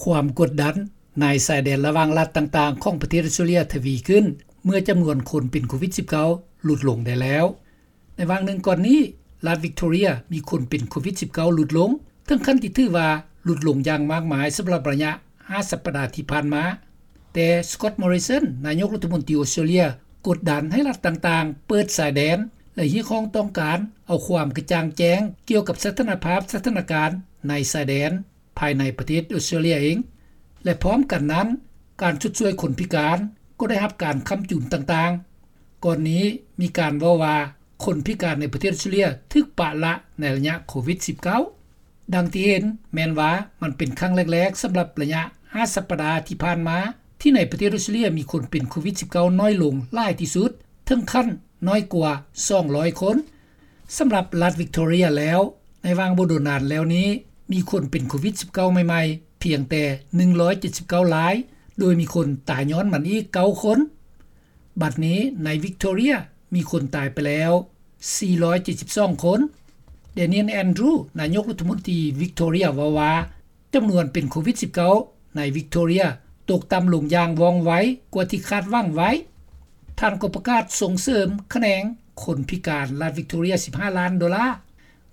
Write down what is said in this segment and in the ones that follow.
ຄວາມກົດດັນໃນຊາຍແດນລະຫວ່າງລັດຕ່າງໆຂອງປະເທດອອສເຕຣເລັຽທະວີຂຶ້ນ ເມື່ອຈຳນວນຄົນເປັນໂຄວິດ-19 ຫຼຸດລົງໄດ້ແລ້ວ. ໃນຫວ່າງໜຶ່ງກ່ອນນີ້, ລັດວິກໂທເຣຍມີຄົນເປັນໂຄວິດ-19 ຫຼຸດລົງ ເຖິງຂັ້ນທີ່ຖືວ່າຫຼຸດລົງຢ່າງມາກມາຍສຳລັບໄລຍະຫ້າສັບປະດາທີ່ຜ່ານມາ. ແຕ່ Scott Morrison ນາຍົກລັດຖະມົນຕີອອສເຕຣເລັຽ ກົດດັນໃຫ້ລັດຕ່າງໆເປີດຊາຍແດນ ແລະ ຮຽກຮ້ອງຕ້ອງການເອົາຄວາມກະຈ່າງແຈ້ງກ່ຽວກັບສະຖານະພາບສະຖານະການໃນຊາຍແດນ ພາຍໃນປະເທດອອສເຕຣເລັຽເອງ ແລະ ພ້ອມກັນນັ້ນ, ການຊົດຊ່ວຍຄົນພິການກໍໄດ້ຮັບການຄ້ຳຈຸນຕ່າງໆ. ກ່ອນນີ້ມີການເວົ້າວ່າ ຄົນພິການໃນປະເທດອອສເຕຣເລັຽຖືກປະລະໃນໄລຍະໂຄວິດ-19. ດັ່ງທີ່ເຫັນແມ່ນວ່າມັນເປັນຄັ້ງແລກໆສຳລັບໄລຍະຫ້າສັບປະດາທີ່ຜ່ານມາ ທີ່ໃນປະເທດອອສເຕຣເລັຽມີຄົນເປັນໂຄວິດ-19 ນ້ອຍລົງຫຼາຍທີ່ສຸດ ເຖິງຂັ້ນນ້ອຍກວ່າສອງຮ້ອຍຄົນ. ສຳລັບລັດວິກໂທເຣຍແລ້ວ, ໃນຫວ່າງບໍ່ດົນນານແລ້ວນີ້ ມີຄົນເປັນໂຄວິດ-19 ໃໝ່ໆພຽງແຕ່ໜຶ່ງຮ້ອຍເຈັດສິບເກົ້າລາຍ, ໂດຍມີຄົນຕາຍຍ້ອນມັນອີກເກົ້າຄົນ. ບັດນີ້ໃນວິກໂທເຣຍມີຄົນຕາຍໄປແລ້ວສີ່ຮ້ອຍເຈັດສິບສອງຄົນ. Daniel Andrews ນາຍົກລັດຖະມົນຕີວິກໂທເຣຍເວົ້າວ່າ ຈຳນວນເປັນໂຄວິດ-19 ໃນວິກໂທເຣຍຕົກຕ່ຳລົງຢ່າງວ່ອງໄວກວ່າທີ່ຄາດຫວັງໄວ້. ທ່ານກໍປະກາດສົ່ງເສີມຂະແໜງຄົນພິການລັດວິກໂທເຣຍສິບຫ້າລ້ານໂດລາ.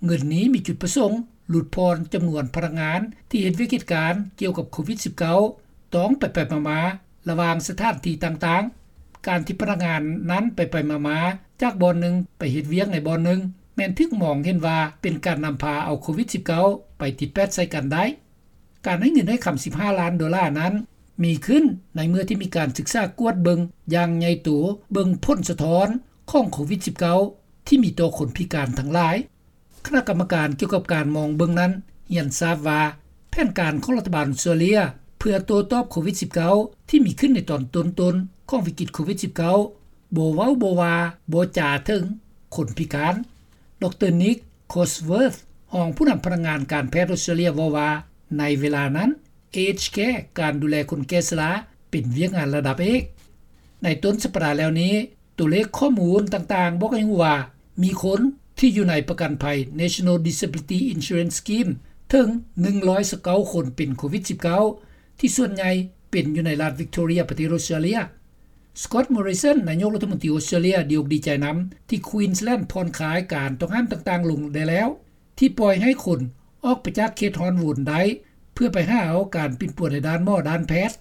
ເງິນນີ້ມີຈຸດປະສົງຫຼຸດຜ່ອນຈຳນວນພະນັກງານທີ່ເຮັດວຽກເຮັດການກ່ຽວກັບໂຄວິດ-19 ຕ້ອງໄປໆມາໆລະຫວ່າງສະຖານທີ່ຕ່າງໆ. ການທີ່ພະນັກງານນັ້ນໄປໆມາໆຈາກບ່ອນໜຶ່ງໄປເຮັດວຽກໃນບ່ອນໜຶ່ງ ແມ່ນຖືກມອງເຫັນວ່າເປັນການນຳພາເອົາໂຄວິດ-19 ໄປຕິດແປດໃສ່ກັນໄດ້. ການໃຫ້ເງິນໃຫ້ຄຳສິບຫ້າລ້ານໂດລານັ້ນ ມີຂຶ້ນໃນເມື່ອທີ່ມີການສຶກສາກວດເບິ່ງຢ່າງໃຫຍ່ໂຕ ເບິ່ງຜົນສະທ້ອນຂອງໂຄວິດ-19 ທີ່ມີຕໍ່ຄົນພິການທັງຫຼາຍ. ຄະນະກຳມະການກ່ຽວກັບການມອງເບິ່ງນັ້ນຮຽນຊາບວ່າ ແຜນການຂອງລັດຖະບານອອສເຕຣເລັຽ ເພື່ອໂຕ້ຕອບໂຄວິດ-19 ທີ່ມີຂຶ້ນໃນຕອນຕົ້ນໆຂອງວິກິດໂຄວິດ-19 ບໍ່ເວົ້າບໍ່ວ່າບໍ່ຈາເຖິງຄົນພິການ. ດຣ. Nick Cosworth ຮອງຜູ້ນຳພະນັກງານການແພດອອສເຕຣເລັຽເວົ້າວ່າ ໃນເວລານັ້ນ Aged Care ການດູແລຄົນແກ່ຊະລາ ເປັນວຽກງານລະດັບເອກ. ໃນຕົ້ນສັບປະດາແລ້ວນີ້, ຕົວເລກຂໍ້ມູນຕ່າງໆບອກໃຫ້ຮູ້ວ່າ ມີຄົນທີ່ຢູ່ໃນປະກັນໄພ National Disability Insurance Scheme ເຖິງໜຶ່ງຮ້ອຍຊາວເກົ້າຄົນເປັນໂຄວິດ-19 ທີ່ສ່ວນໃຫຍ່ເປັນຢູ່ໃນລັດວິກໂທເຣຍ ປະເທດອອສເຕຣເລັຽ. Scott Morrison ນາຍົກລັດຖະມົນຕີອອສເຕຣເລັຽ ດີອົກດີໃຈນຳທີ່ Queensland ຜ່ອນຄາຍການຕ້ອງຫ້າມຕ່າງໆລົງໄດ້ແລ້ວ ທີ່ປ່ອຍໃຫ້ຄົນອອກໄປຈາກເຂດຮ້ອນວນໄດ້ ເພື່ອໄປຫາເອົາການປິ່ນປົວໃນດ້ານໝໍດ້ານແພດ.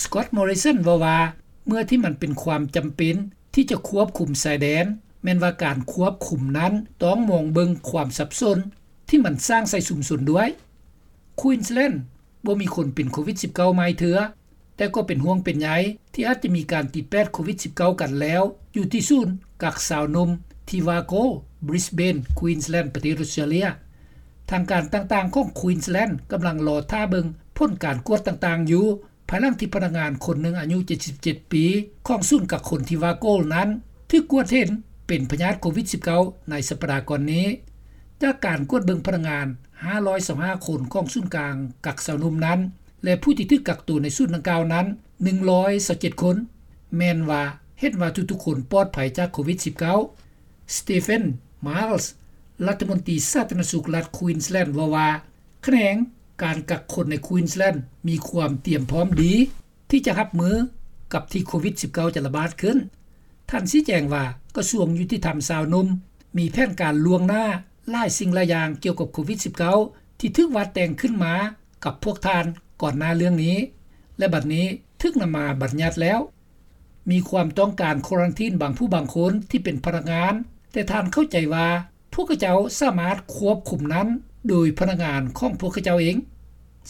Scott Morrison ເວົ້າວ່າ ເມື່ອທີ່ມັນເປັນຄວາມຈຳເປັນທີ່ຈະຄວບຄຸມຊາຍແດນ, ແມ່ນວ່າການຄວບຄຸມນັ້ນຕ້ອງມອງເບິ່ງຄວາມສັບສົນທີ່ມັນສ້າງໃສ່ຊຸມຊົນດ້ວຍ. Queensland ບໍ່ມີຄົນເປັນໂຄວິດ-19 ໃໝ່ເທື່ອ, ແຕ່ກໍເປັນຫ່ວງເປັນໃຍທີ່ອາດຈະມີການຕິດແປດໂຄວິດ-19 ກັນແລ້ວ ຢູ່ທີ່ສູນກັກຊາວໜຸ່ມທີ່ Wargo, Brisbane, Queensland ປະເທດອອສເຕຣເລັຽ. ທາງການຕ່າງໆຂອງ Queensland ກຳລັງລໍຖ້າເບິ່ງຜົນການກວດຕ່າງໆຢູ່ ພາຍຫຼັງທີ່ພະນັກງານຄົນໜຶ່ງອາຍຸເຈັດສິບເຈັດປີ ຂອງສູນກັກຄົນທີ່ Wargo ນັ້ນ ຖືກກວດເຫັນເປັນພະຍາດໂຄວິດ-19 ໃນສັບປະດາກ່ອນນີ້. ຈາກການກວດເບິ່ງພະນັກງານຫ້າຮ້ອຍຊາວຫ້າຄົນຂອງສູນກາງກັກຊາວໜຸ່ມນັ້ນ ແລະ ຜູ້ທີ່ຖືກກັກໂຕໃນສູນດັ່ງກ່າວນັ້ນ ໜຶ່ງຮ້ອຍຊາວເຈັດຄົນ ແມ່ນວ່າເຫັນວ່າທຸກໆຄົນປອດໄພຈາກໂຄວິດ-19. Stephen Miles ລັດຖະມົນຕີສາທາລະນະສຸກລັດ Queensland ເວົ້າວ່າ ຂະແໜງການກັກຄົນໃນ Queensland ມີຄວາມຕຽມພ້ອມດີທີ່ຈະຮັບມືກັບທີ່ໂຄວິດ-19 ຈະລະບາດຂຶ້ນ. ທ່ານຊີ້ແຈງວ່າ ກະຊວງຍຸຕິທຳຊາວໜຸ່ມ ມີແຜນການລ່ວງໜ້າຫຼາຍສິ່ງຫຼາຍຢ່າງກ່ຽວກັບໂຄວິດ-19 ທີ່ຖືກວາດແຕ່ງຂຶ້ນມາກັບພວກທ່ານກ່ອນໜ້າເລື່ອງນີ້ ແລະ ບັດນີ້ຖືກນຳມາບັນຍັດແລ້ວ. ມີຄວາມຕ້ອງການຄວາຣັນທີນບາງຜູ້ບາງຄົນທີ່ເປັນພະນັກງານ, ແຕ່ທ່ານເຂົ້າໃຈວ່າພວກເຂົາເຈົ້າສາມາດຄວບຄຸມນັ້ນໂດຍພະນັກງານຂອງພວກເຂົາເຈົ້າເອງ.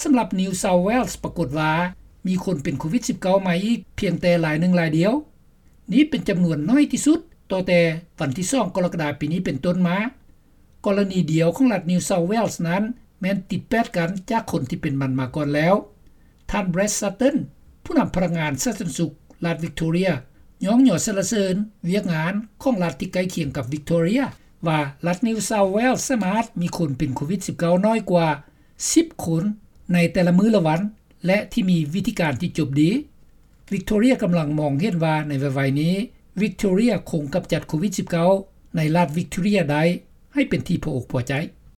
ສຳລັບ New South Wales ປາກົດວ່າມີຄົນເປັນໂຄວິດ-19 ໃໝ່ອີກພຽງແຕ່ລາຍໜຶ່ງລາຍດຽວ. ນີ້ເປັນຈຳນວນໜ້ອຍທີ່ສຸດ ຕໍ່ແຕ່ວັນທີສອງ ກໍລະກະດາ ປີນີ້ເປັນຕົ້ນມາ. ກໍລະນີດຽວຂອງລັດ New South Wales ນັ້ນ ແມ່ນຕິດແປດກັນຈາກຄົນທີ່ເປັນມັນມາກ່ອນແລ້ວ. ທ່ານ Brad Sutton ຜູ້ນຳພະນັກງານສາທາລະນະສຸກລັດ Victoria ຍ້ອງຍໍສັນລະເສີນວຽກງານຂອງລັດທີ່ໃກ້ຄຽງກັບ Victoria ວ່າລັດ New South Wales ສາມາດມີຄົນເປັນໂຄວິດ-19 ໜ້ອຍກວ່າສິບຄົນໃນແຕ່ລະມື້ລະວັນ ແລະ ທີ່ມີວິທີການທີ່ຈົບດີ. Victoria ກຳລັງມອງເຫັນວ່າໃນໄວໆນີ້ Victoria ຄົງກຳຈັດໂຄວິດ-19 ໃນລັດ Victoria ໄດ້ໃຫ້ເປັນທີ່ພໍອົກພໍໃຈ.